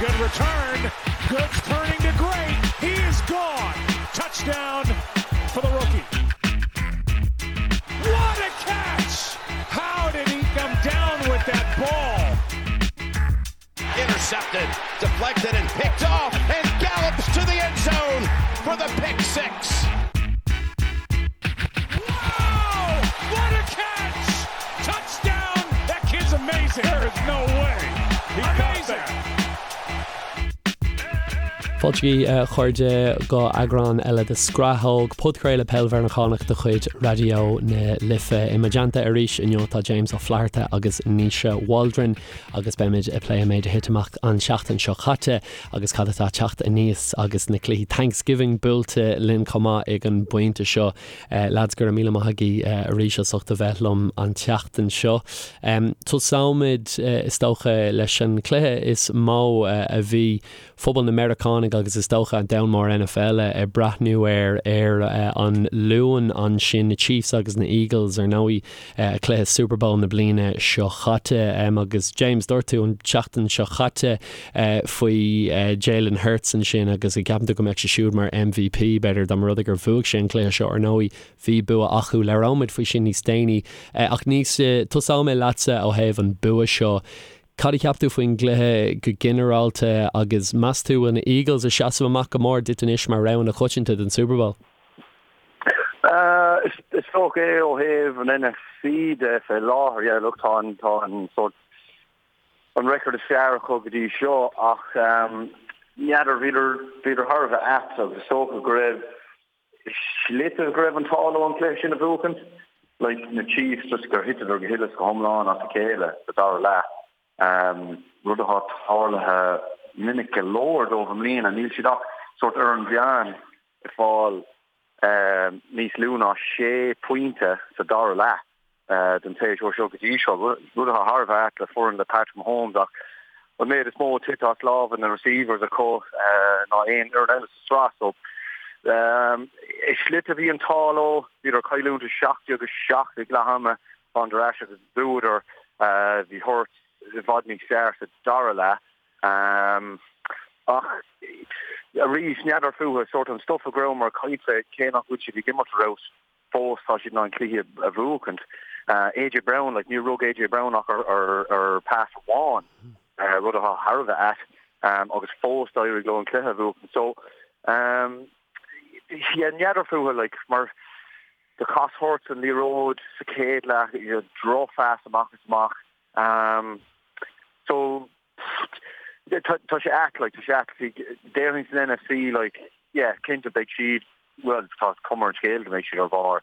Good return. Good turning to great. He is gone. Touchdown for the rookie. What a catch! How did he come down with that ball? Intercepted, deflected, and picked off, and gallops to the end zone for the pick 6. Wow! What a catch! Touchdown! That kid's amazing. There is no way. He amazing. Fáilte a chairde go eagrán eile de Scrathóg, podchraoladh peil Mheiriceánach de chuid Raidió na Life. I mo dteannta arís inniu tá James Ó Flatharta agus Naoise Waldron agus beimid ag plé an méid a thit amach an tseachtain seo caite agus cad atá ag teacht aníos agus na cluichí Thanksgiving buailte linn chomh maith ag an bpointe seo. Lads, go raibh míle maith agaibh arís as ucht a bheith liom an tseachtain seo. Tosóimid, is dócha, leis an chluiche is mó a bhí phobal na Meiriceánaigh agus is dócha an domhan mór NFL ag breathnú air ar an Luan ansin, na Chiefs agus na Eagles, ar ndóigh, cluiche Super Bowl na bliana seo chaite. Agus James, dúirt tú an tseachtain seo chaite faoi Jalen Hurts ansin agus an gceapann tú go mbeadh sé siúd mar MVP, b'fhéidir, dá mba rud é gur bhuaigh sé an cluiche seo. Ar ndóigh, bhí bua acu. Labhróimid faoi sin níos déanaí. Ach Naoise, tosóidh mé leatsa ó thaobh an bua seo. Cad a cheap tú faoin gcluiche go ginearálta agus meas tú bhfuil na Eagles ag seasamh amach go mór duit anois mar rogha na coitianta don Super Bowl? Is dócha é ó thaobh an NFC de fé láthair. Yeah, look, tá an, tá an sórt, an record is fearr acu go dtí seo ach n'fheadar, bhíodar, bhíodar thar a bheith ait agus is dócha go raibh slite go raibh an t-ádh leo an cluiche sin a bhuachaint. Like, na Chiefs, just gur thiteadar go huile is go hiomlán as a chéile sa dara leath. Rud atá tarlaithe minic go leor dóibh i mbliana. Níl siad ach sórt ar an mheán ag fáil níos lú ná sé phointe sa dara leath den tséasúr seo go dtí seo, rud atá thar a bheith ait le foireann le Patrick Mahomes ach an méid is mó tite as lámha na receivers acu ná aon fhoireann eile sa tsraith. So i slite bhí an t-ádh leo, bhíodar ag cailliúint 17-7 ag leath ama, thánadar ar ais agus bhuadar. Bhí Hurts i bhfad níos fearr sa dara leath. Ach arís, n'fheadar fúthu, sórt an stuif a go rabhamar ag caint fé, cé nach bhfuil siad ag imirt ar fheabhas fós, tá siad in ann cluichí a bhuachaint. AJ Brown, like, níor rug AJ Brown ach ar pass amháin, rud atá thar a bheith ait, agus fós d'éirigh leo an cluiche a bhuachaint. So, yeah, n'fheadar fúthu, like, mar do chas Hurts an liathróid sa chéad leath, you know, drochphas amach is amach. So, tá sé ait, like, tá sé ait, déarfainn san NFC, like, yeah, cinnte beidh siad, bhuel, tá cuma ar an scéal go mbeidh siad ar bharr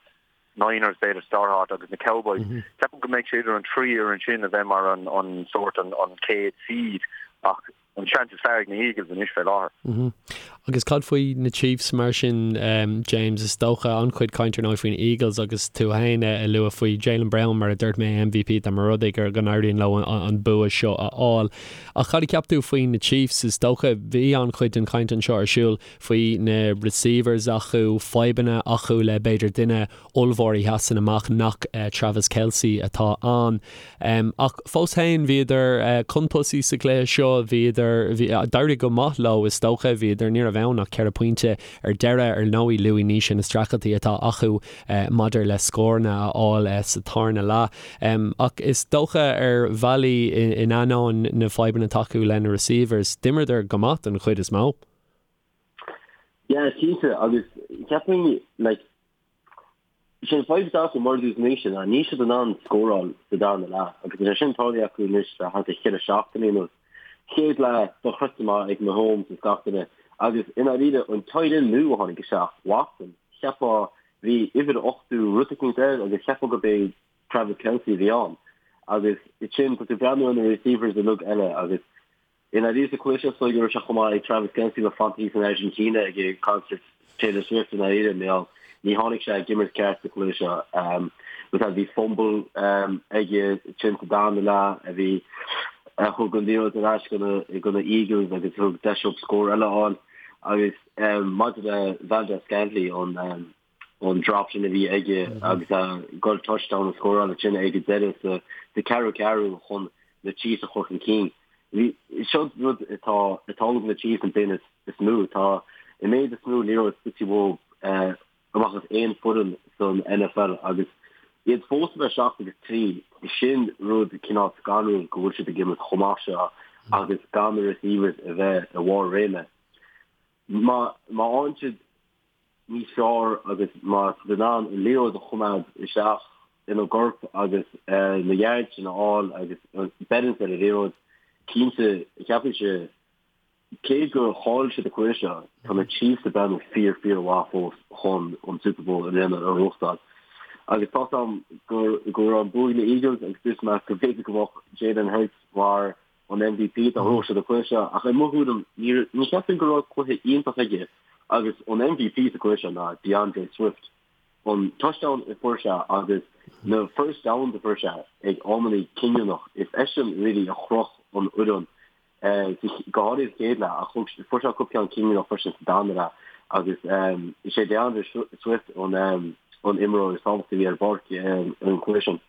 Niners b'fhéidir sa dara háit agus na Cowboys. Ceapaim go mbeidh sé idir an trí fhoireann sin a bheith mar an, an sórt, an, an chéad seed ach an seans is fearr ag na Eagles anois fé láthair. Agus cad faoi na Chiefs mar sin, James? Is dócha an-chuid cainte ar ndóigh faoin Eagles agus tú féin ag lua faoi Jalen Brown mar a dúirt mé MVP dá mba rud é go n-éiríonn leo an bua seo a fháil. Ach cad a cheap tú faoi na Chiefs? Is dócha bhí an-chuid den chaint anseo ar siúl faoi na receivers acu, fadhbanna acu le b'fhéidir duine ollmhór a sheasann amach nach Travis Kelce atá ann. Ach fós féin, bhíodar chun tosaigh sa chluiche seo, bhíodar, d'éirigh go maith leo is dócha, bhíodar, ní raibh ann ach ceithre phointe ar deireadh. Ar ndóigh, luaigh Naoise na streachailtí atá acu maidir le scóranna a fháil sa tarna leath. Ach is dócha ar bhealaí, in ainneoin na fadhbanna atá acu le na receivers, d'imríodar go maith don chuid is mó. Yeah, cinnte, agus ceapaim, like, Sé an fadhb atá acu, mar a dúirt Naoise, ná níl siad in ann scóráil sa darna leath agus tá sé sin tarlaithe acu anois le thart ar cheithre seachtainí anuas. Chéad leath dochreidte maith ag Mahomes is gach duine agus i ndáiríre an tight end nua a tháinig isteach, Watson, cheapfá bhí uimhir 80 rud eicínt air agus cheapfá gurb é Travis Kelce a bhí ann agus ansin tá tú ag breathnú ar na receivers uilig eile agus I ndáiríre sa chluiche seo is dóigh go raibh sé chomh maith ag Travis Kelce le fanacht thíos in Argentina ag concert Taylor Swift i ndáiríre mar ní tháinig sé ag imirt ceart sa chluiche seo. But bhí fumble aige ansin sa darna leath a bhí a thug an liathróid ar ais go na Eagles agus thug deis dóibh scór eile a fháil agus maidir le Valdes-Scantling an an drop sin a bhí aige agus ag goil touchdown a scóráil ansin ag an deireadh sa ceathrú ceathrú chun na Chiefs a chur chun cinn. Bhí, seo rud atá atá ag na Chiefs an duine is mó, tá an méid is mó liathróid scoite uathu amach as aon foireann san NFL agus iad fós a bheith 7 agus 3, sin rud cineál scanrúil go bhfuil siad ag imirt chomh maith seo agus gan na receivers a bheith i bharr réime. Má má fhaigheann siad níos fearr agus má tá siad in ann an liathróid a choimeád isteach ina gcorp agus na yards sin a fháil agus balance ar an liathróid, cinnte, ceapaimse, cé gur chaill siad an cluiche seo, tá na Chiefs ag breathnú fíor, fíor mhaith fós chun an Super Bowl i mbliana a ghnóthachtáil. Agus tá 's a'm go go raibh an bua ag na Eagles agus dúirt mé go mb'fhéidir go mbeadh Jalen Hurts mar an MVP dá ngnóthódh siad an cluiche seo ach i mo thuairim ní cheapaim go raibh cluiche iontach aige agus an MVP sa cluiche seo ná D'Andre Swift. An touchdown a fuair sé agus na first downs a fuair sé ag amanna cinniúnach, is eisean really a chroch an fhoireann go háirithe sa chéad leath ach fuair sé cúpla ceann cinniúnach freisin sa darna leath agus is é D'Andre Swift an imreoir is tábhachtaí a bhí ar an bpáirc an cluiche sin.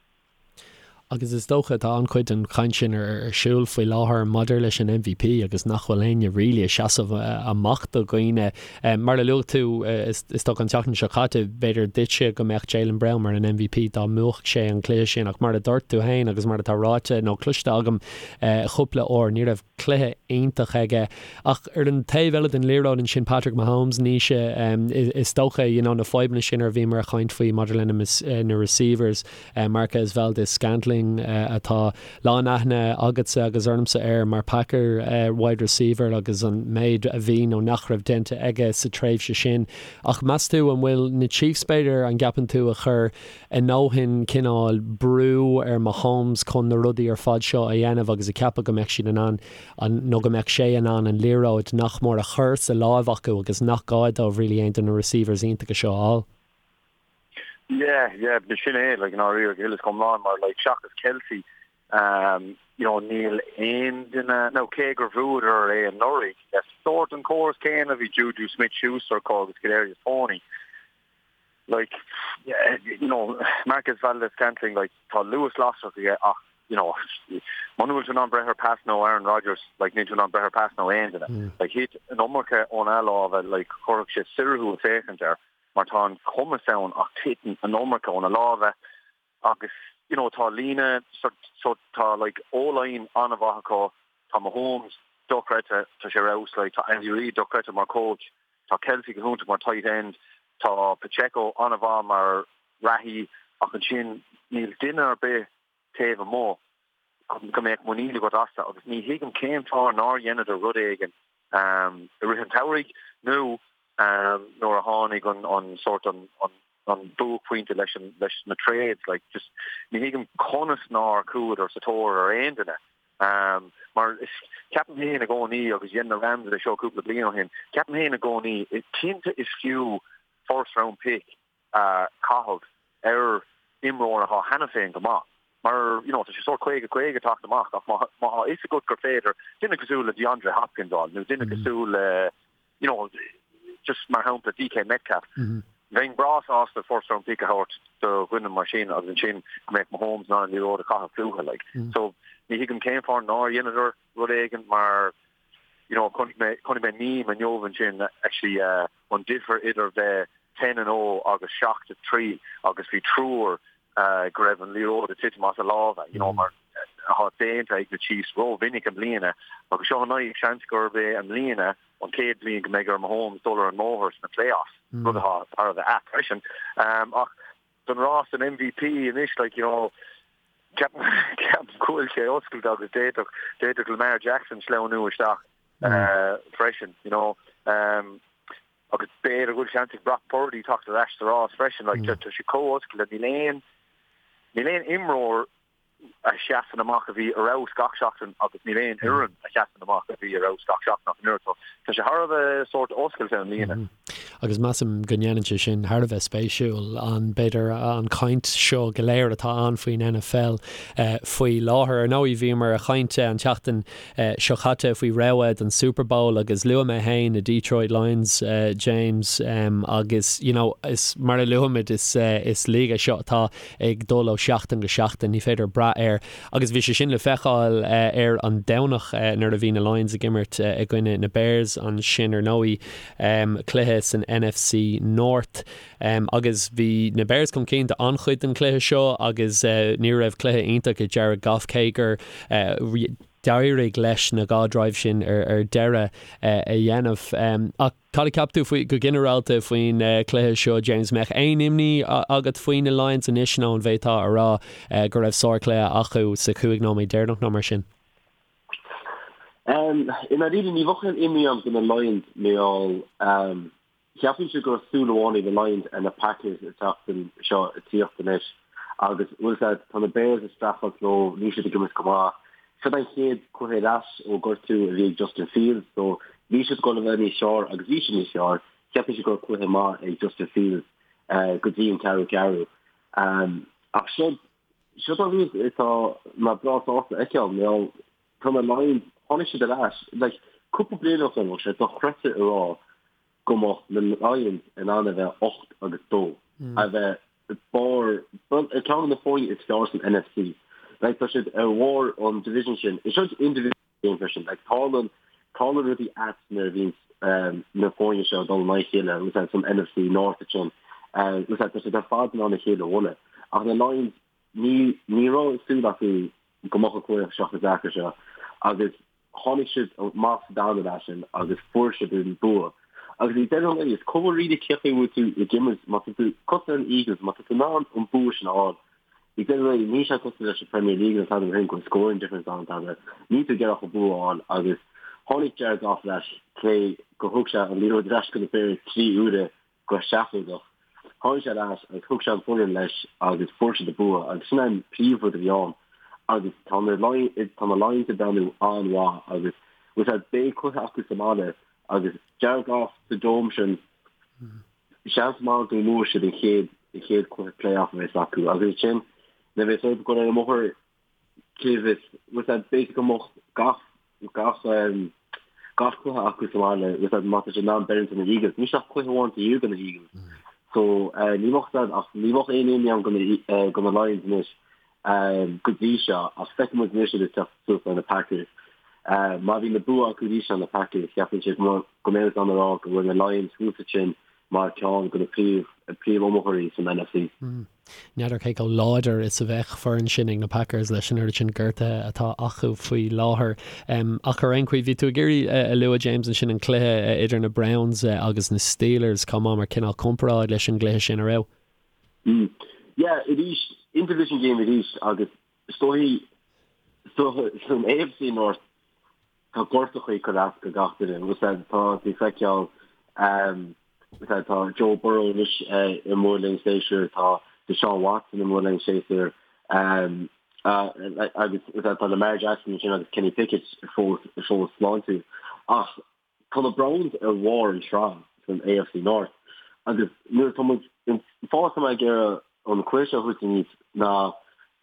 Agus is dócha, tá an-chuid den chaint sin ar siúl faoi láthair maidir leis an MVP agus nach bhfuil éinne really ag seasamh amach do dhaoine. Mar a luaigh tú, is dócha an tseachtain seo caite, b'fhéidir duitse go mbeadh Jaylen Brown mar an MVP dá mbuafadh sé an cluiche sin ach mar a dúirt tú féin agus mar atá ráite nó cloiste agam chúpla uair, ní raibh cluiche iontach aige. Ach ar an taobh eile den liathróid ansin, Patrick Mahomes, Naoise, is dócha, you know, na fadhbanna sin ar bhíomar ag caint faoi maidir lena na receivers, Marquez Valdes-Scantling atá lán aithne agatsa agus ormsa air mar Packer wide receiver agus an méid a bhí nó nach raibh déanta aige sa tréimhse sin. Ach meas tú an bhfuil na Chiefs b'fhéidir, an gceapann tú, a chur a ndóthain cineál brú ar Mahomes chun na rudaí ar fad seo a dhéanamh agus ag ceapadh go mbeadh siad in ann an, nó go mbeadh sé in ann an liathróid nach mór a chur sa láimh acu agus nach gá dóibh really aon de na receivers iontacha seo a fháil. Yeah, yeah, sin é, like, i ndáiríre, go huile is go hiomlán mar, like, seachas Kelce, um, you know, níl aon duine, nó cé gur bhuadar é anuraidh, le sórt an córas céanna, bhí Juju Smith-Schuster acu agus Kadarius Toney. Like, you know, Marquez Valdes-Scantling, like, tá luas lasrach aige ach, you know, muna bhfuil tú in ann breith ar pas nó Aaron Rodgers, like, níl tú in ann breith ar pas nó aon duine. Mm. Like, thit an iomarca óna lámha, like, chuirfeadh sé soir thú ag féachaint air, mar tá an cumas ann ach titeann an iomarca óna lámha agus, you know, tá líne, so, so tá, like, O-line an-mhaith acu, tá Mahomes dochreidte, tá sé ar fheabhas, like, tá Andy Reid dochreidte mar coach, Tá Kelce go hiontach mar tight end, tá Pacheco an-mhaith mar reathaí ach ansin níl duine ar bith taobh amuigh go mbeadh muinín agat astu agus ní thuigim cén fáth nár dheineadar rud éigin i rith an tsamhraidh nó nuair a tháinig an sórt an an buaicphointe leis an leis na trades like just ní thuigim conas nár chuadar sa tóir ar aon duine um, mar is ceapaim féin i gcónaí agus dhein na Rams é seo cúpla bliain ó shin ceapaim féin i gcónaí cinnte is fiú first round pick a chaitheamh ar imreoir atá cheana féin go maith mar you know tá sé sórt 50 50 teacht amach ach má tá a fhios agat gur féidir duine cosúil le DeAndre Hopkins a fháil nó duine cosúil le you know, just mar shampla DK Metcalf. Bheinn breá sásta first round pick a thabhairt do dhuine mar sin agus ansin go mbeadh Mahomes in ann an liathróid a chaitheamh fúthu like. So ní thuigim cén fáth nár dheineadar rud éigin mar you know chonaic mé chonaic mé meme inniu ansin actually uh, an difear idir bheith 10 and 0 agus 7 3 agus bhí triúr uh, go raibh an liathróid ag titim as a lámha you know mar atá déanta ag na Chiefs ró-mhinic i mbliana agus seo an seans gurb é i mbliana an chéad bhliain go mbeidh ar Mahomes dul ar an mbóthar sna playoffs rud atá thar a bheith ait freisin. Um, ach don rás an MVP anois like, you know, ceapaim go bhfuil sé oscailte agus d'fhéadfadh d'fhéadfadh Lamar Jackson sleamhnú isteach uh, freisin, you know. Um, agus b'fhéidir go bhfuil seans ag Brock Purdy teacht ar ais sa rás freisin, like, tá sé chomh oscailte níl aon níl aon imreoir a sheasann amach a bhí ar fheabhas gach seachtain agus níl aon fhoireann a sheasann amach a bhí ar fheabhas gach seachtain ach an oiread. So tá sé thar a bheith sórt oscailte i mbliana. Agus measaim go ndéanann sé sin thar a bheith spéisiúil, an, b'fhéidir, an chaint seo go léir atá ann faoin NFL faoi láthair. Ar ndóigh, bhíomar ag caint an tseachtain seo caite faoi rogha don Super Bowl agus luaigh mé féin na Detroit Lions, James, agus you know is mar a luaimid is is league é seo atá ag dul ó sheachtain go seachtain, ní féidir brath. brath air agus bhí sé sin le feiceáil ar an Domhnach nuair a bhí na Lions ag imirt i gcoinne na Bears ansin ar ndóigh, cluiche san NFC North. Agus bhí na Bears chun cinn d'an-chuid den chluiche seo agus ní raibh cluiche iontach ag Jared Goff cé gur d'éirigh leis na dá drive sin ar deireadh a dhéanamh. Ach cad a cheap tú faoi, go ginearálta faoin chluiche seo, James? Mbeadh aon imní agat faoi na Lions anois nó an bhféadfá a rá go raibh sárchluiche acu sa chúig nóiméad deireanach nó mar sin? I ndáiríre ní bheadh aon imní agam do na Lions mar gheall Cheapfainnse go raibh súil amháin ag na Lions ar na Packers an tseachtain seo ag tíocht anois agus, bhfuil 's a'd, tá na Bears ag streachailt leo, níl siad ag imirt go maith. Seo an chéad cluiche ar ais ó gortú a bhí ag Justin Fields so bhí siad ag dul a bheith níos fearr agus bhí siad níos fearr. Cheapfainnse go raibh cluiche maith ag Justin Fields go dtí an ceathrú ceathrú. Ach seo, seo an rud atá mé breá sásta a fheiceáil, mar gheall tá na Lions, tháinig siad ar ais, like, cúpla bliain ó shin, bheadh sé dochreidte a rá go mbeadh na Lions in ann a bheith 8 agus 2, a bheith barr, ceann de na foirne is fearr san NFC. Like, tá siad ar bharr an division sin. Is seo in-division game freisin. Like, tarlann, tarlann rudaí ait nuair a bhíonn na foirne seo ag dul in aghaidh a chéile, bhfuil 's a'd, san NFC North ansin. Bhfuil 's a'd, tá siad ar fad in ann a chéile a bhualadh. Ach na Lions, ní, ní raibh súil acu go mbeadh an cluiche seo chomh deacair seo agus tháinig siad amach sa darna leath sin agus fuair siad an bua. Agus ag deireadh an lae, is cuma really cé chaoi a bhfuil tú ag imirt, má tá tú cosúil leis na Eagles, má tá tú in ann an bua sin a fháil, ag deireadh an lae, níl sé cosúil leis an Premier League nó tada mar sin, go bhfuil scoring difference ann tada, níl tú ag iarraidh ach an bua a fháil agus tháinig Jared Goff ar ais, cé gur thug sé an liathróid ar ais go na Bears 3 uaire go seafóideach. Tháinig sé ar ais agus thug sé an foireann leis agus fuair siad an bua agus sin an príomhrud a bhí ann agus tá na tá na Lions ag breathnú an-mhaith agus bhfuil 's a'd beidh cluiche acu sa mbaile agus Jared Goff sa dome sin seans maith go mbuafaidh siad an chéad an chéad cluiche playoff a bheas acu agus ansin nuair a bheas orthu dul ar an mbóthar cé bhfios bhfuil 's a'd b'fhéidir go mbeadh gach gach gach cluiche acu sa bhaile bhfuil 's a'd má tá siad in ann beirt na Eagles. Níl ach cluiche amháin taobh thiar de na Eagles. So ní bheadh 's a'd ach ní bheadh aon imní agam do na Lions anois go dtí seo ach feicfidh muid anois iad ag teacht suas ar na Packers. Má bhíonn na bua acu arís ar na Packers cheapfainnse go mbeidh muid in ann a rá go bhfuil na Lions thuas ansin mar ceann de na príomh príomh-iomaitheoirí san NFC. N'fheadar cé chomh láidir is a bheadh foireann sin ag na Packers leis an oiread sin gortuithe atá acu faoi láthair. Ach ar aon chaoi, bhí tú ag iarraidh a lua, James, ansin an cluiche idir na Browns agus na Steelers chomh maith mar cineál comparáid leis an gcluiche sin, an raibh? Yeah, arís, in-division game arís agus is dóigh san AFC North tá gortachaí ag cur as go gach duine. Bhfuil 's a'd, tá tú ag feiceáil, bhfuil 's a'd, tá Joe Burrow anois i mbaol linn séasúr, tá Deshaun Watson i mbaol linn séasúr, agus bhfuil 's a'd, tá Lamar Jackson ansin agus Kenny Pickett fós fós sláintiúil. Ach tá na Browns ar bharr an tsraith san AFC North agus nuair atá muid, an fáth atá mé ag iarraidh an cluiche seo a thabhairt aníos ná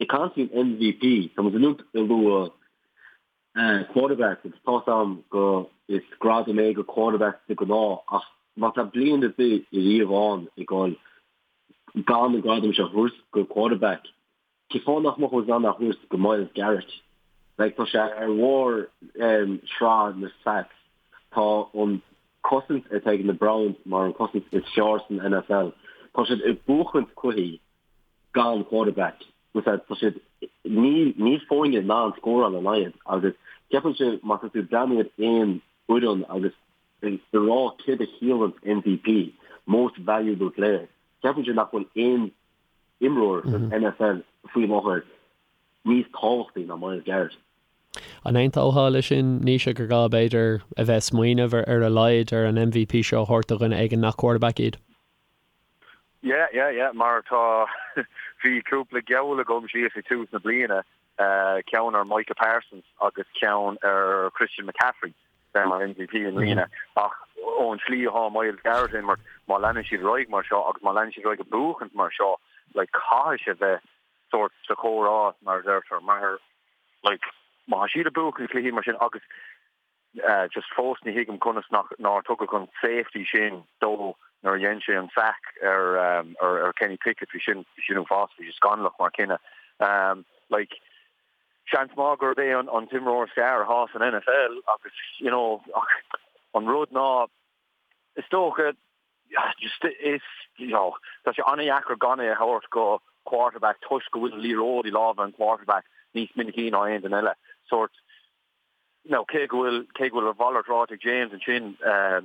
ag caint faoin MVP, tá muid uilig ag lua quarterbacks agus tá's a'm go is gradam é go quarterbacks de ghnáth ach má tá bliain ar bith ariamh ann ag dul gan an gradam seo a thabhairt go quarterback, cén fáth nach mbeadh muid in ann é a thabhairt go Myles Garrett? Like tá sé ar bharr sraith na sacks, tá an cosaint atá ag na Browns mar an cosaint is fearr san NFL, tá siad ag buachaint cluichí gan quarterback. Bhfuil 's a'd, tá siad, níl, níl foirne in ann scóráil ina n-aghaidh agus ceapaimse má tá tú ag breathnú ar aon fhoireann agus ag rá céard a chiallaíonn MVP, Most Valuable Player, ceapaimse nach bhfuil aon imreoir san NFL faoi láthair níos tábhachtaí ná Myles Garrett. An aontófá leis sin, Naoise, gur gá b'fhéidir a bheith ag smaoineamh ar a laghad ar an MVP seo a thabhairt do dhuine éigin nach quarterback iad? Yeah, yeah, yeah, mar tá, bhí cúpla geall agam síos ag tús na bliana, ceann ar Micah Parsons agus ceann ar Christian McCaffrey bheith mar MVP i mbliana ach ón tslí atá Myles Garrett ag imirt, má leanann siad ar aghaidh mar seo agus má leanann siad ar aghaidh ag buachaint mar seo, like, caithfidh sé bheith sórt sa chomhrá, mar a deirtear, mar, like, má tá siad ag buachaint cluichí mar sin agus Just fós ní thuigim conas nach nár tugadh an safety sin dó nuair a dhein sé an sack ar ar Kenny Pickett. Bhí sin bhí sin uafásach, bhí sé scannalach mar cinneadh. Like. Seans maith gurb é an t-imreoir is fearr atá san NFL agus, you know, ach an rud ná, is dócha, just is, you know, tá sé an-dheacair gan é a thabhairt go quarterback toisc go bhfuil an liathróid i lámha an quarterback níos minicí ná aon duine eile. Sórt, now cé go bhfuil, cé go bhfuil a mhalairt ráite ag James ansin,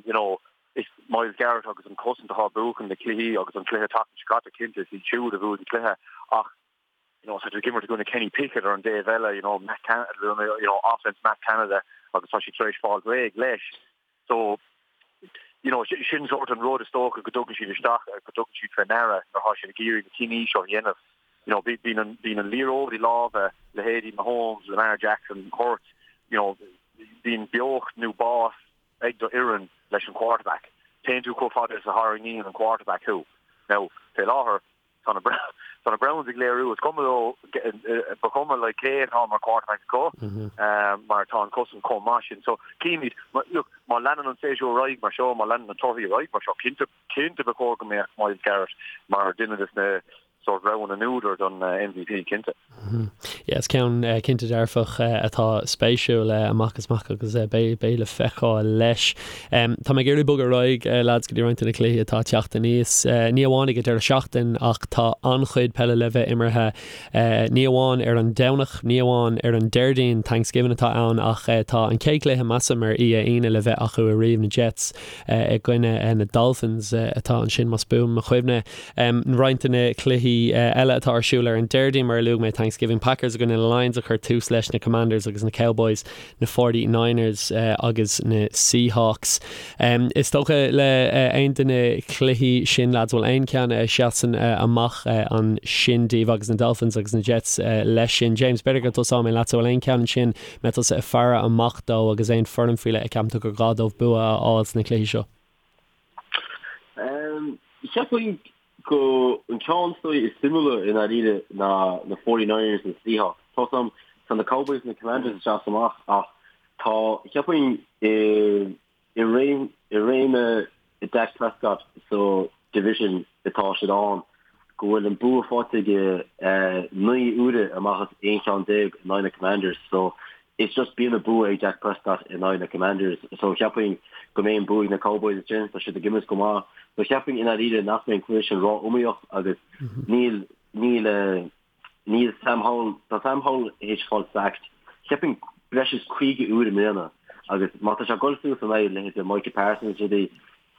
you know, is Myles Garrett agus an cosaint atá ag buachan na cluichí agus an cluiche tseachtain seo caite cinnte is iad siúd a bhuaigh an cluiche ach, you know, tá tú ag imirt i gcoinne Kenny Pickett ar an dtaobh eile, you know, Matt Can you know, offense Matt Canada agus tá siad tar éis fáil réidh leis. So, you know, sin sórt an rud is dócha go dtugann siad isteach, go dtugann siad fé ndeara nuair atá siad ag iarraidh na cinní seo a dhéanamh. You know, bíonn an, bíonn an liathróid i lámha leithéidí Mahomes, Lamar Jackson, Hurts, you know, bíonn beocht nó bás ag do fhoireann leis an quarterback. Téann tú chomh fada is a tharraingíonn an quarterback thú. Now, fé láthair, Tá na tá na Browns ag léiriú is cuma leo ba chuma like cé atá mar quarterback acu mar tá an cosaint chomh maith sin. So címid look má leanann an séasúr ar aghaidh mar seo, má leanann na torthaí ar aghaidh mar seo, cinnte cinnte ba chóir go mbeadh Myles Garrett mar duine des na sórt rogha na n-údar don MVP, cinnte. Yeah, is ceann cinnte dearfach atá spéisiúil amach is amach agus beidh beidh le feiceáil leis. Tá mé ag iarraidh bogadh ar aghaidh lads go dtí roinnt de na cluichí atá ag teacht aníos. Ní amháin ag an deireadh seachtain ach tá an-chuid peile le bheith imeartha ní amháin ar an Domhnach, ní amháin ar an Déardaoin, Thanksgiving atá ann ach tá an chéad chluiche measaim ar oíche Aoine le bheith acu ariamh, na Jets i gcoinne na Dolphins atá ansin más buan mo chuimhne. Roinnt de na cluichí eile atá ar siúl ar an Déardaoin, mar a luaigh mé, Thanksgiving, Packers i gcoinne na Lions a chuir tús leis, na Commanders agus na Cowboys, na Forty Niners agus na Seahawks. Is dócha le aon de na cluichí sin, lads, bhfuil aon cheann a sheasann amach ansin daoibh agus na Dolphins agus na Jets leis sin? James, b'fhéidir go dtosóidh mé leatsa, bhfuil aon cheann ansin mbeidh tusa ag faire amach dó agus aon foireann faoi leith a ceapann tú gur gá dóibh bua a fháil sna cluichí seo? Cheapfainn go an ceann is dóigh is suimiúla i ndáiríre ná na Forty Niners na Seahawks. Tá 's a'm, tá na Cowboys na Commanders ag seasamh amach ach tá, cheapfainn i i réim i réim Dak Prescott sa division atá siad ann go bhfuil an bua faighte aige 9 uaire amach as 11 cheann in aghaidh na Commanders so It's just bíonn an bua ag Dak Prescott in aghaidh na Commanders so cheapfainn go mbeidh an bua ag na Cowboys ansin, tá siad ag imirt go maith. So cheapfainn i ndáiríre nach mbeidh an cluiche sin ró-iomaíoch agus níl, níl, níl Sam Howell, tá Sam Howell théis fáil sacked cheapfainn breis is 50 uair i mbliana agus má tá sé ag dul suas in aghaidh leithéide Micah Parsons is rudaí,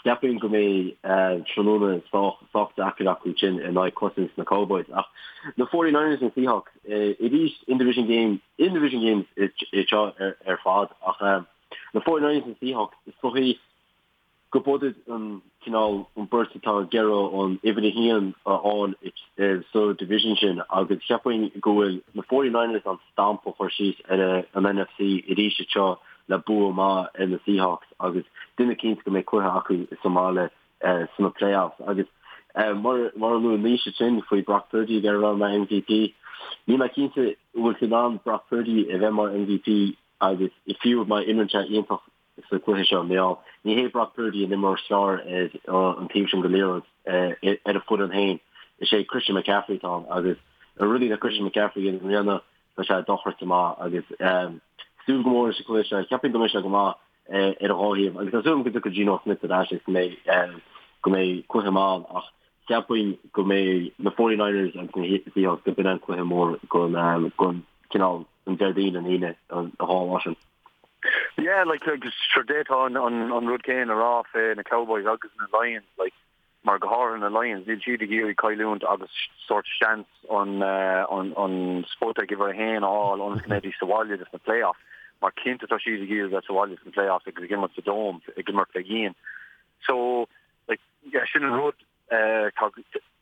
Cheapfainn go mbeidh tráthnóna sách sách deacair acu sin in aghaidh cosaint na Cowboys. Ach na 49ers na Seahawks, arís in-division game, in-division games iad seo ar fad ach na 49ers na Seahawks, is dóichí go b'iad an cineál an beirt atá ag iarraidh an uimhir a haon a fháil sa division sin agus cheapfainn go bhfuil na 49ers an stamp a chur síos ar an NFC arís anseo le bua maith ar na Seahawks agus duine cinnte go mbeidh cluiche acu sa mbaile sna playoffs. Agus mar mar a luaigh Naoise ansin faoi Brock Purdy ag iarraidh a bheith mar MVP, níl mé cinnte an bhfuil tú in ann Brock Purdy a bheith mar MVP agus fiú má imríonn sé iontach sa chluiche seo. Níl, ní hé Brock Purdy an imreoir is fearr ar an taobh sin den liathróid ar a foireann féin. Is é Christian McCaffrey atá ann agus na rudaí le Christian McCaffrey i mbliana tá sé dochreidte maith agus súil go mór leis an chluiche seo. Cheapfainn go mbeidh sé go maith ar an dhá thaobh agus tá súil agam go dtiocfaidh Geno Smith ar ais agus go mbeidh go mbeidh cluiche maith ann ach cheapfainn go mbeidh na 49ers agus na Seahawks go b'in an cluiche mór don don cineál an Déardaoin an Aoine an dhá lá sin. Yeah, like, agus sure d'fhéadfá an, an, an rud céanna a rá fé na Cowboys agus na Lions, like, mar go háirithe na Lions, níl siad ag iarraidh cailliúint agus sórt seans an, an, an spota ag uimhir a haon a fháil ionas go mbeidís sa bhaile dos na playoffs, mar cinnte tá siad ag iarraidh bheith sa bhaile sna playoffs agus ag imirt sa Dome, ag imirt fé dhíon. So, like, yeah, sin an rud, tá,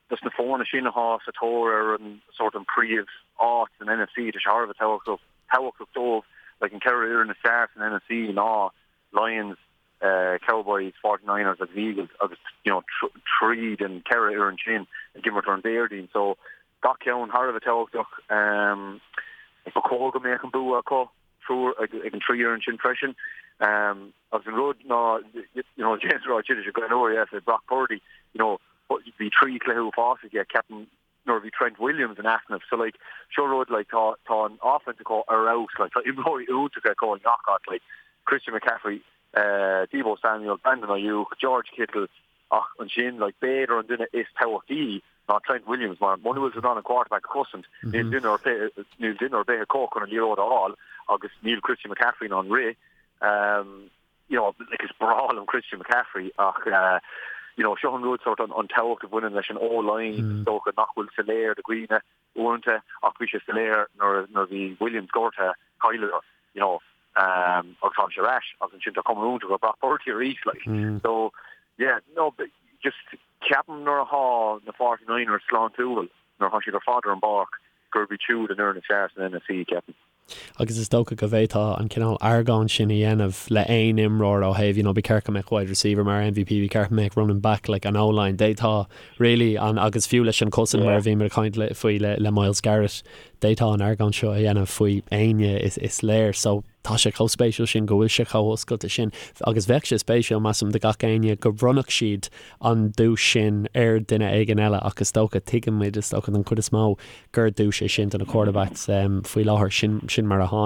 dos na foirne sin atá sa tóir ar an sórt an príomh áit san NFC, tá sé thar a bheith tábhachtach tábhachtach dóibh, like an ceithre fhoireann is fearr san NFC ná Lions, Cowboys, 49ers agus Eagles agus you know trí den ceithre fhoireann sin ag imirt ar an Déardaoin so gach ceann thar a bheith tábhachtach. Ba chóir go mbeadh an bua acu. triúr ag an trí fhoireann sin freisin. Agus an rud ná, you know, James ag rá ansin go leor, yeah, Brock Purdy, you know, bhí trí chluiche uafásach aige, ceapaim. nuair a bhí Trent Williams in easnamh. So like seo rud like tá tá an offense acu ar fheabhas like tá imreoirí iontacha acu i ngach áit like Christian McCaffrey, eh, Deebo Samuel, Brandon Aiyuk, George Kittle ach ansin like b'fhéidir an duine is tábhachtaí ná Trent Williams mar muna bhfuil tú in ann an quarterback a chosaint níl duine ar bith níl duine ar bith acu chun an liathróid a fháil agus níl Christian McCaffrey in ann rith. Um, you know, like is breá liom Christian McCaffrey ach uh, you know, seo an rud sort an, an tábhacht a bhaineann leis an O-line mm. is dócha nach bhfuil soiléir do dhaoine uaireanta ach bhí sé soiléir nuair nuair bhí Williams gortaithe chailleadar you know, um, agus tháinig sé ar ais agus ansin tá cuma iontach ar Brock Purdy arís like. Mm. So yeah, no, but just ceapaim nuair atá na 49ers sláintiúil nuair atá siad ar fad ar an bpáirc gurb iad siúd an fhoireann is fearr san NFC ceapaim. Agus is dócha go bhféadfá an cineál argóint sin a dhéanamh le aon imreoir ó thaobh, you know, ba cheart go mbeadh wide receiver mar MVP, ba cheart go mbeadh running back like an O-line, d'fhéadfá really an, agus fiú leis an cosaint mar a bhí muid ag caint le, faoi le, le Myles Garrett, d'fhéadfá an argóint seo a dhéanamh faoi éinne is, is léir. So tá sé chomh spéisiúil sin go bhfuil sé chomh hoscailte sin agus bheadh sé spéisiúil, measaim, do gach éinne go mbronnfadh siad an duais sin ar duine éigin eile ach is dócha, tuigeann muid, is dócha don chuid is mó, gur duais é sin do na quarterbacks faoi láthair. Sin, sin mar atá.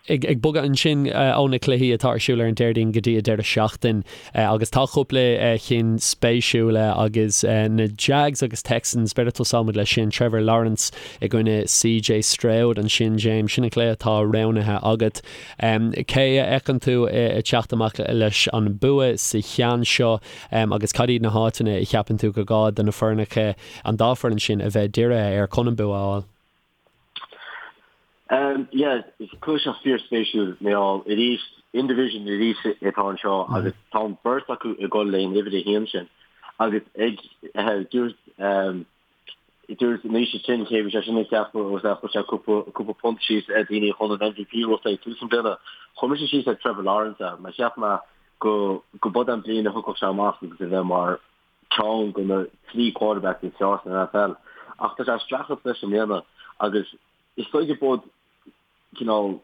Ag, ag bogadh ansin ó na cluichí atá ar siúl ar an Déardaoin go dtí an deireadh seachtain agus tá cúpla cinn spéisiúla agus na Jags agus Texans, b'fhéidir tosóimid leis sin, Trevor Lawrence i gcoinne CJ Stroud ansin, James, sin an cluiche atá roghnaithe agat. Cé a fheiceann tú ag teacht amach leis an bua sa cheann seo agus cad iad na háiteanna a cheapann tú gur gá do na foirneacha, an dá foireann sin, a bheith dírithe air chun an bua a fháil? Yeah, is cluiche seo fíorspéisiúil mar gheall arís in division arís atá anseo agus tá an beirt acu ag dul leis an uimhir a haon sin agus ag dúirt Dúirt Naoise sin cé bhí sé sin ag ceapadh agus é chuir sé cúpla punt síos ar daoine chun an MVP a bhuachtáil ag tús an bliana. Chuir mise síos ar Trevor Lawrence é mar cheap mé go go b'fhada an bliain a thiocfadh sé amach agus a bheith mar ceann de na trí quarterbacks is fearr san NFL. Ach tá sé ag streachailt leis i mbliana agus is dóigh go bud cineál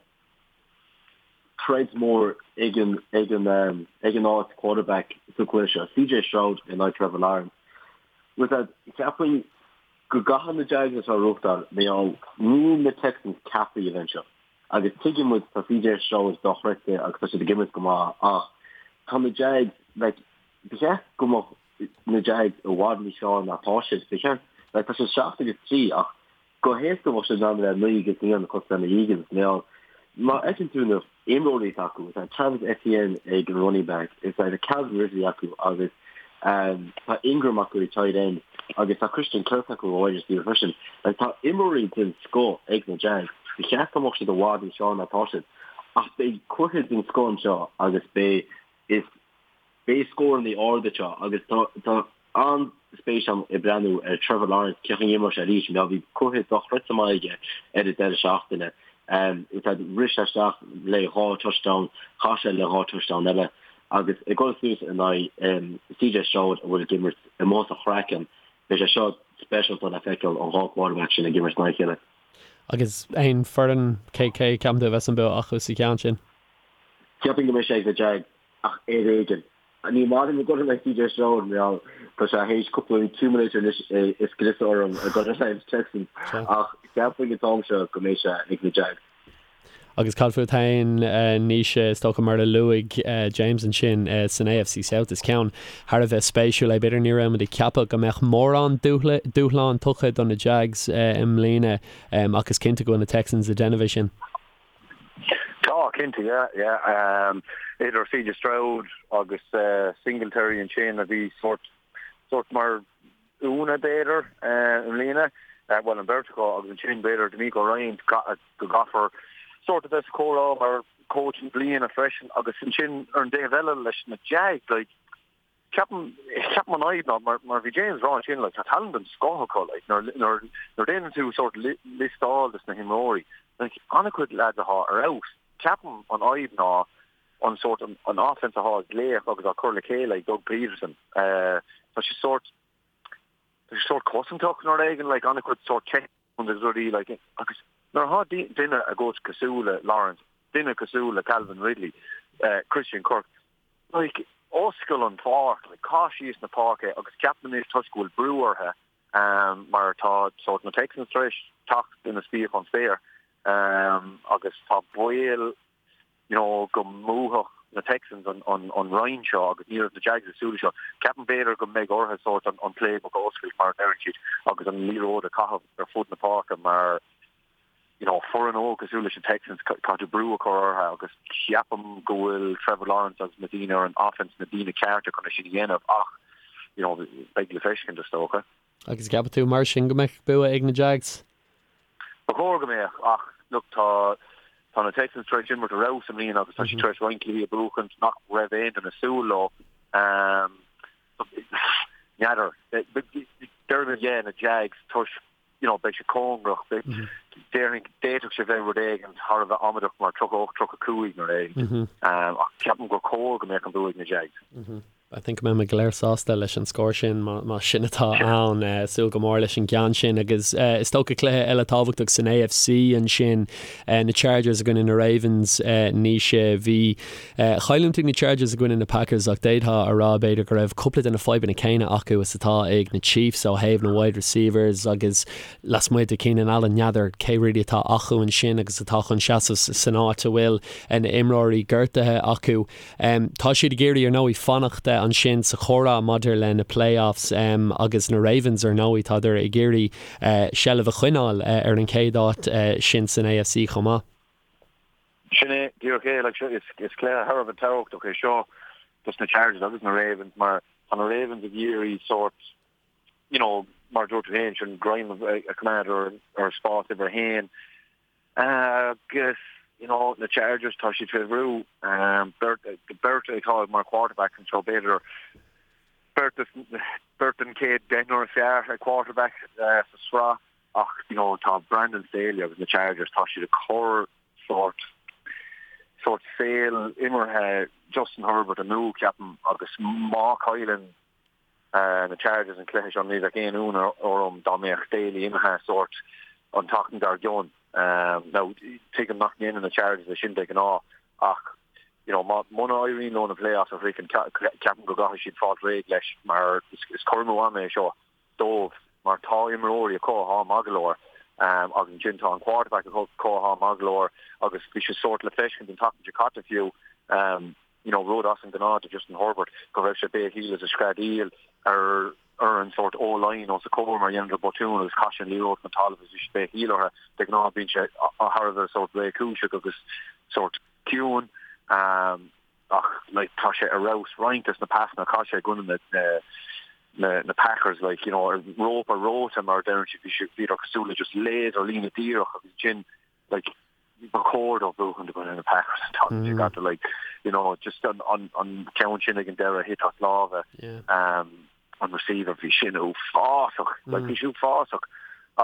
troid mór ag an ag an ag an áit quarterback sa chluiche seo, CJ Stroud in aghaidh Trevor Lawrence. With that, cheapfainn go gcaithfidh na Jags é seo a bhuachtáil mar gheall níl na Texans ceaptha a bheith anseo. Agus tuigeann muid tá CJ Stroud dochreidte agus tá siad ag imirt go maith ach tá na Jags like ba cheart go mbeadh na Jags i bhfad níos fearr ná tá siad. Ba cheart like tá siad 7 agus 3 ach Go héasca bheadh siad in ann a bheith 9 agus 1 cosúil le na Eagles mar gheall má fheiceann tú na imreoirí atá acu, tá Travis Etienne ag an running back, is tá Calvin Ridley acu agus tá Ingram acu ag tight end agus tá Christian Kirk acu ag wide receiver freisin. Like tá imreoirí den scoth ag na Jags. Ba cheart go mbeadh siad i bhfad níos fearr ná tá siad. Ach beidh cluiche den scoth anseo agus beidh is Beidh scóranna arda anseo agus tá an-spéis agam ag breathnú ar Trevor Lawrence, cén chaoi a n-imreoidh sé arís mar bhí cluiche dochreidte maith aige ar an deireadh seachtaine. Rith sé isteach le dhá touchdown, chaith sé le dhá touchdown eile agus ag dul suas in aghaidh CJ Stroud a bhfuil ag imirt amuigh as a chraiceann, beidh sé seo speisialta le feiceáil an dhá quarterback sin ag imirt in aghaidh a chéile. Agus aon foireann, cé cé ceapann tú a bheas an bua acu sa cheann sin? Cheapfainn go mbeidh sé ag na Jags. Ach ar éigean. Ní maith liom ag dul in aghaidh CJ Stroud mar gheall tá sé théis cúpla accumulator anois a scriosadh orm ag dul in aghaidh na Texans ach cheapfainn an t-am seo go mbeidh sé ag na Jags. Agus cad fút féin, Naoise, is dócha mar a luaigh James ansin san AFC South is ceann thar a bheith spéisiúil é. B'fhéidir ní raibh muid ag ceapadh go mbeadh mórán dúshlán tugtha do na Jags i mbliana ach is cinnte go bhfuil na Texans ag déanamh é sin. Tá, cinnte, yeah, yeah. Idir CJ Stroud agus Singletary ansin a bhí sórt, sórt mar ionadh b'fhéidir i mbliana, bhuel an bheirt acu agus ansin b'fhéidir DeMeco Ryans go gcaithfear sórt a bheith sa chomhrá mar coach na bliana freisin agus ansin ar an dtaobh eile leis na Jags like Ceapaim, ceapaim an fhadhb ná, mar, mar bhí James ag rá ansin, like, tá tallann den scoth acu, like, nuair, nuair, nuair déanann tú sórt liostáil des na himreoirí, like, an-chuid lads atá ar fheabhas. Ceapaim an fhadhb ná an sórt, an, an offense atá á glaoch agus á cur le chéile ag Doug Pederson. Eh, tá sé sórt, tá sé sórt cosantach nó rud éigin, like, an-chuid sórt check agus rudaí, like, agus nuair atá duine agat cosúil le Lawrence, duine cosúil le Calvin Ridley, eh, Christian Kirk, Like, oscail an pháirc, like, caith síos na páirce agus ceapaim anois toisc go bhfuil brú orthu, Mar tá sórt na Texans tar éis teacht ina spíoch ón spéir agus tá baol you know go mbuafadh na Texans an an roinn seo agus ní raibh na Jags ag súil leis seo. Ceapaim b'fhéidir go mbeidh orthu sórt an an playbook a oscailt mar a deireann siad agus an liathróid a chaitheamh ar fud na páirce mar you know foireann óg cosúil leis na Texans caithfidh tú brú a chur orthu agus ceapaim go bhfuil Trevor Lawrence agus na daoine ar an offense na daoine cearta chun é sin a dhéanamh ach you know beidh le feiscint is dócha. Agus ceapann tú mar sin go mbeadh bua ag na Jags? Ba chóir go mbeadh ach look tá tá na Texans tar éis imirt ar fheabhas i mbliana agus tá siad tar éis roinnt cluichí a bhuachaint nach raibh aon duine ag súil leo. N'fheadar. Déarfainn yeah na Jags toisc you know beidh sé cóngarach déarfainn d'fhéadfadh sé bheith rud éigin thar a bheith amaideach mar 38 35 nó rud éigin. Ach ceapaim gur chóir go mbeadh an bua ag na Jags. I think go mbeidh muid go léir sásta leis an scór sin má sin atá ann. Súil go mór leis an gceann sin agus is dócha cluiche eile tábhachtach san AFC ansin, na Chargers i gcoinne na Ravens. Naoise, bhí chailliúint ag na Chargers i gcoinne na Packers ach d'fhéadfá a rá b'fhéidir go raibh cúpla de na fadhbanna céanna acu is atá ag na Chiefs ó thaobh na wide receivers agus lasmuigh de Keenan Allen n'fheadar cé really atá acu ansin agus atá chun seasamh san áit a bhfuil na imreoirí gortaithe acu. Tá siad ag iarraidh, ar ndóigh, fanacht ansin sa chomhrá maidir le na playoffs agus na Ravens, ar ndóigh, tádar ag iarraidh seilbh a choinneáil ar an chéad áit sin san AFC chomh maith. Sin é, díreach é. Like, is cluiche thar a bheith tábhachtach é seo dos na Chargers agus na Ravens mar tá na Ravens ag iarraidh sórt, you know, mar a dúirt tú féin, sin greim a choimeád ar spás uimhir a haon. Agus, you know, na Chargers, tá siad fé bhrú. Beirt, beirt atá mar quarterbacks anseo, b'fhéidir beirt, beirt den chéad deichniúr is fearr ag quarterback sa sraith ach, you know, tá Brandon Staley agus na Chargers, tá siad ag cur sórt, sórt saol imeartha Justin Herbert amú, ceapaim, agus má chailleann na Chargers an cluiche seo, ní bheadh aon ionadh orm dá mbeadh Staley imithe sórt an tseachtain dár gcionn. Now, tuigim nach ndéanann na Chargers é sin de ghnáth ach you know, má, muna éiríonn leo na playoffs a shroichint, ceapaim go gcaithfidh siad fáil réidh leis mar is cur amú ama é seo dóibh mar tá imreoirí acu atá maith go leor agus ansin tá an quarterback acu atá maith go leor agus bhí sé sórt le feiscint an tseachtain seo caite fiú you know, rud as an ngnáth do Justin Herbert, go raibh sé béicíl is ag screadaíl ar ar an sórt O-line os a chomhair mar dheineadar botún agus chaith sé an liathróid chun talaimh agus bhí sé béicíl orthu. De ghnáth bíonn sé thar a bheith sórt réchúiseach agus sórt ciúin ach like tá sé ar fheabhas roinnt des na pasanna a chaith sé i gcoinne na na na Packers like you know rópa reoite mar a deireann siad bhí sé bhíodar cosúil le just laser líne díreach agus ansin like ba chóir dóibh buachan i gcoinne na Packers an tseachtain seo caite like you know just an an an ceann sin ag an deireadh thit as lámha um an receiver bhí sin uafásach like bhí sin uafásach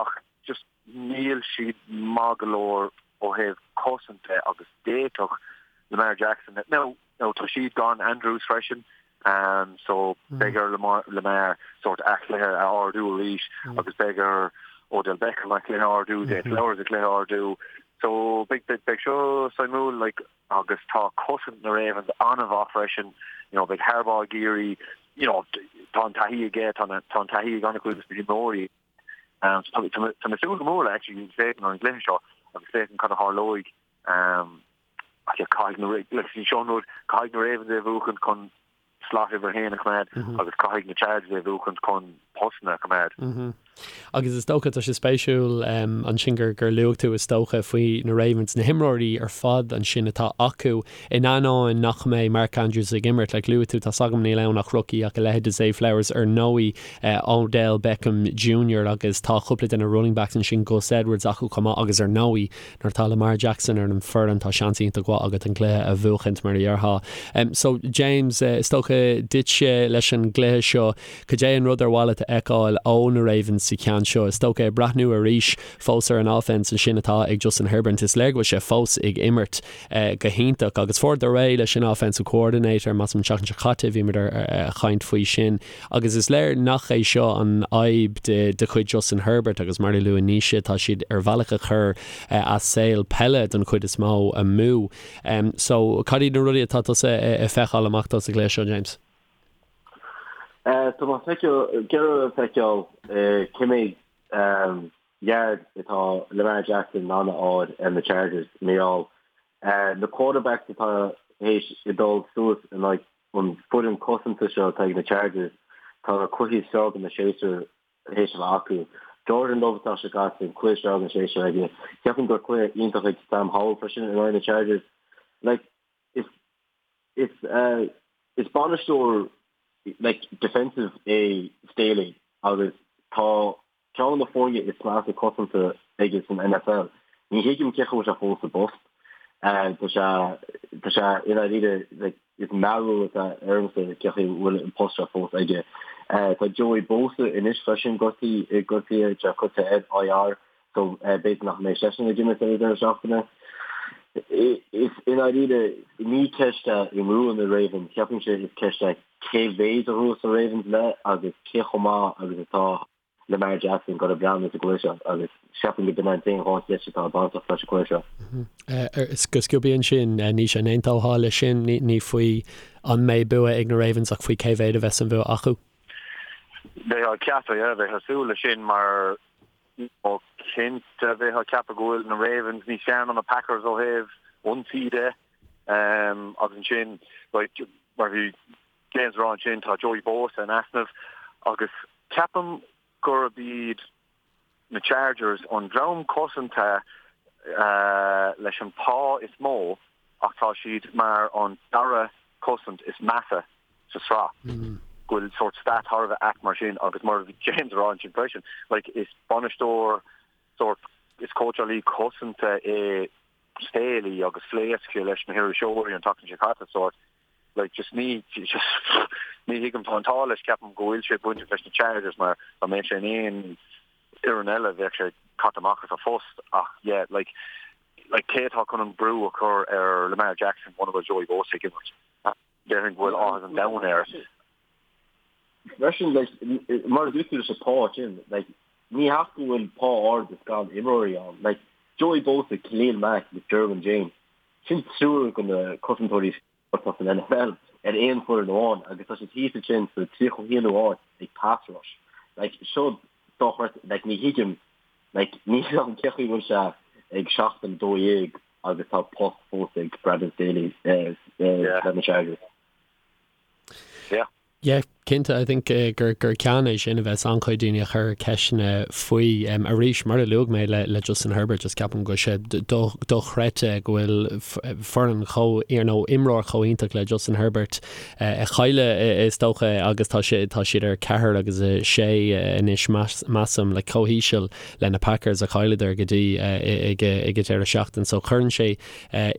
ach just níl siad maith go leor ó thaobh cosaint de agus d'fhéadfadh Lamar Jackson now Now tá siad gan Andrews freisin so beidh ar Lamar sórt a chluiche a ardú arís agus beidh ar Odell Beckham a chluiche a ardú, Zay Flowers a chluiche a ardú. So beidh beidh seo suimiúil like agus tá cosaint na Ravens an-mhaith freisin. You know beidh Harbaugh ag iarraidh you know tá an taithí aige, tá tá an taithí ag an-chuid de na himreoirí. Um, so tá tá mé ag súil go mór le actually féachaint ar an gcluiche seo agus féachaint cad a tharlóidh. Um, Ach yeah, caithfidh na, like, seo an rud, caithfidh na Ravens é a bhuachaint chun slot uimhir a haon a choimeád agus caithfidh na Chargers é a bhuachaint chun postanna a choimeád. Agus is dócha, tá sé spéisiúil ansin gur gur luaigh tú is dócha faoi na Ravens, na himreoirí ar fad ansin atá acu in ainneoin nach mbeidh Mark Andrews ag imirt. Like luaigh tú, tá's agam níl ann ach rookie ach a leithéid de Zay Flowers ar ndóigh, Odell Beckham Junior agus tá cúpla de na running backs ansin, Gus Edwards acu chomh maith agus ar ndóigh Nuair atá Lamar Jackson ar an foireann, tá seans iontach mhaith agat an cluiche a bhuachaint, mar a déarfá. So, James, is dócha duitse leis an gcluiche seo, cad é an rud ar mhaith leat a fheiceáil ó na Ravens sa cheann seo? Is dócha, ag breathnú arís fós ar an offense ansin atá ag Justin Herbert, is léir go bhfuil sé fós ag imirt go hiontach agus fuaireadar réidh leis an offensive coordinator, measaim an tseachtain seo caite, bhíomar ag caint faoi sin. Agus is léir nach é seo an fhadhb de chuid Justin Herbert agus mar a luaigh Naoise, tá siad ar bhealach ag cur a saol peile don chuid is mó amú. So, cad iad na rudaí atá tusa ag feiceáil amach dó sa gcluiche seo, James? Tá mé ag iarraidh feiceáil cé mhéad yard atá Lamar Jackson in ann a fháil ar na Chargers mar gheall na quarterbacks atá théis a dul suas in aghaidh an foireann cosanta seo atá ag na Chargers, tá na cluichí is fearr den séasúr théis a bheith acu. Jordan Love atá sé caite, an cluiche is fearr den séasúr aige. Ceapaim gur cluiche iontach ag Sam Howell freisin in aghaidh na Chargers. Like, is is is bainisteoir like defensive é Staley agus tá ceann de na foirne is measa cosanta aige san NFL. Ní thuigim cén chaoi a bhfuil sé fós sa bpost. Tá sé tá sé i ndáiríre like is mearbhall atá ormsa cén chaoi a bhfuil an post seo fós aige. Tá Joey Bosa anois freisin gortaithe gortaithe tá sé curtha ar IR so b'fhéidir nach mbeidh seisean ag imirt ar an deireadh seachtaine. Is i ndáiríre ní ceist é an mbuafaidh na Ravens, ceapaimse is ceist é cé mhéid a ghnóthós na Ravens le agus cé chomh maith agus atá Lamar Jackson ag breathnú sa gcluiche seo agus ceapaim go b'in an t-aon dhá cheist atá bainteach leis an gcluiche seo. Go sciobtha ansin, Naoise, an aontófá leis sin? Ní faoi an mbeidh bua ag na Ravens ach faoi cé mhéad a bheas an bhua acu? Bheifeá ag ceapadh, yeah, bheifeá ag súil leis sin mar ó cinnte bheifeá ag ceapadh go bhfuil na Ravens níos fearr ná na Packers ó thaobh ionsaí de agus ansin like mar bhí James ag rá ansin tá Joey Bosa in easnamh agus ceapaim gurb iad na Chargers an dream cosanta leis an pá is mó ach tá siad mar an dara cosaint is measa sa sraith. Go bhfuil sórt stat thar a bheith ait mar sin agus mar a bhí James ag rá ansin freisin, like is bainisteoir sórt, is cóitseálaí cosanta é Staley agus phléasc sé leis na hiriseoirí an tseachtain seo caite sórt like just ní just ní thuigim tá an t-ádh leis ceapaim go bhfuil sé bainteach leis na Chargers mar dá mbeadh sé in aon fhoireann eile bheadh sé caite amach as a phost ach yeah like like cé atá chun an brú a chur ar Lamar Jackson muna bhfuil Joey Bosa ag imirt? Déarfainn go bhfuil áthas an domhain air. Freisin, like, mar a dúirt tú leis an pá sin, like, ní hea go bhfuil pá ard is gan imreoirí ann. Like, Joey Bosa, Khalil Mack agus Derwin James, sin triúr de na cosantóirí is fearr atá san NFL ar aon foireann amháin agus tá siad thíos ansin sa 31ú áit ag pass rush. Like, seo dochreidte, like, ní thuigim, like, ní thuigim cén chaoi a bhfuil sé ag seachtain 12 agus tá post fós ag Brandon Staley leis na Chargers. Yeah. Yeah, cinnte, I think gur gur ceann é sin a bheas an-chuid daoine ag cur ceisteanna faoi. Arís, mar a luaigh mé le le Justin Herbert, just ceapaim go bhfuil sé dochreidte go bhfuil foireann chomh, nó imreoir chomh iontach le Justin Herbert ag cailleadh is dócha agus tá sé tá siad ar 4 agus 6 anois measaim, like chomh híseal le na Packers a chailleadar go dtí ag an deireadh seachtain so cuireann sé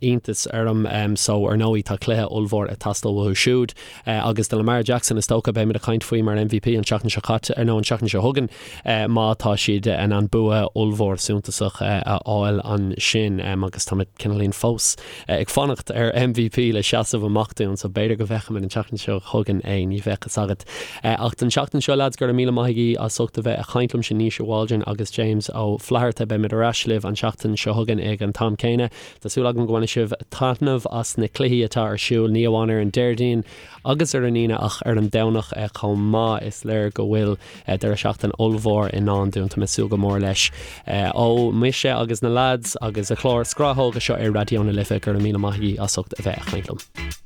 iontas orm. So ar ndóigh tá cluiche ollmhór ag teastáil uathu siúd agus do Lamar Jackson is dócha beimid ag caint faoi mar MVP an tseachtain seo caite nó an tseachtain seo chugainn má tá siad in ann bua ollmhór suntasach a fháil ansin agus táimid cineáilín fós ag fanacht ar MVP le seasamh amach dúinn so b'fhéidir go bhfeicfimid an tseachtain seo chugainn é, ní bheadh fhios agat. Ach don tseachtain seo lads, go raibh míle maith agaibh as ucht a bheith ag caint liomsa Naoise Waldron agus James Ó Flatharta. Beimid ar ais libh an tseachtain seo chugainn ag an t-am céanna. Tá súil agam go mbainfidh sibh taitneamh as na cluichí atá ar siúl, ní amháin ar an Déardaoin agus ar an Aoine ach ar an Domhnach chomh maith. Is léir go bhfuil deireadh seachtaine ollmhór i ndán dúinn. Tá mé ag súil go mór leis. Ó mise agus na lads agus an clár Scrathóga seo ar Raidió na Life, go raibh míle maith agaibh as ucht a bheith ag caint liom.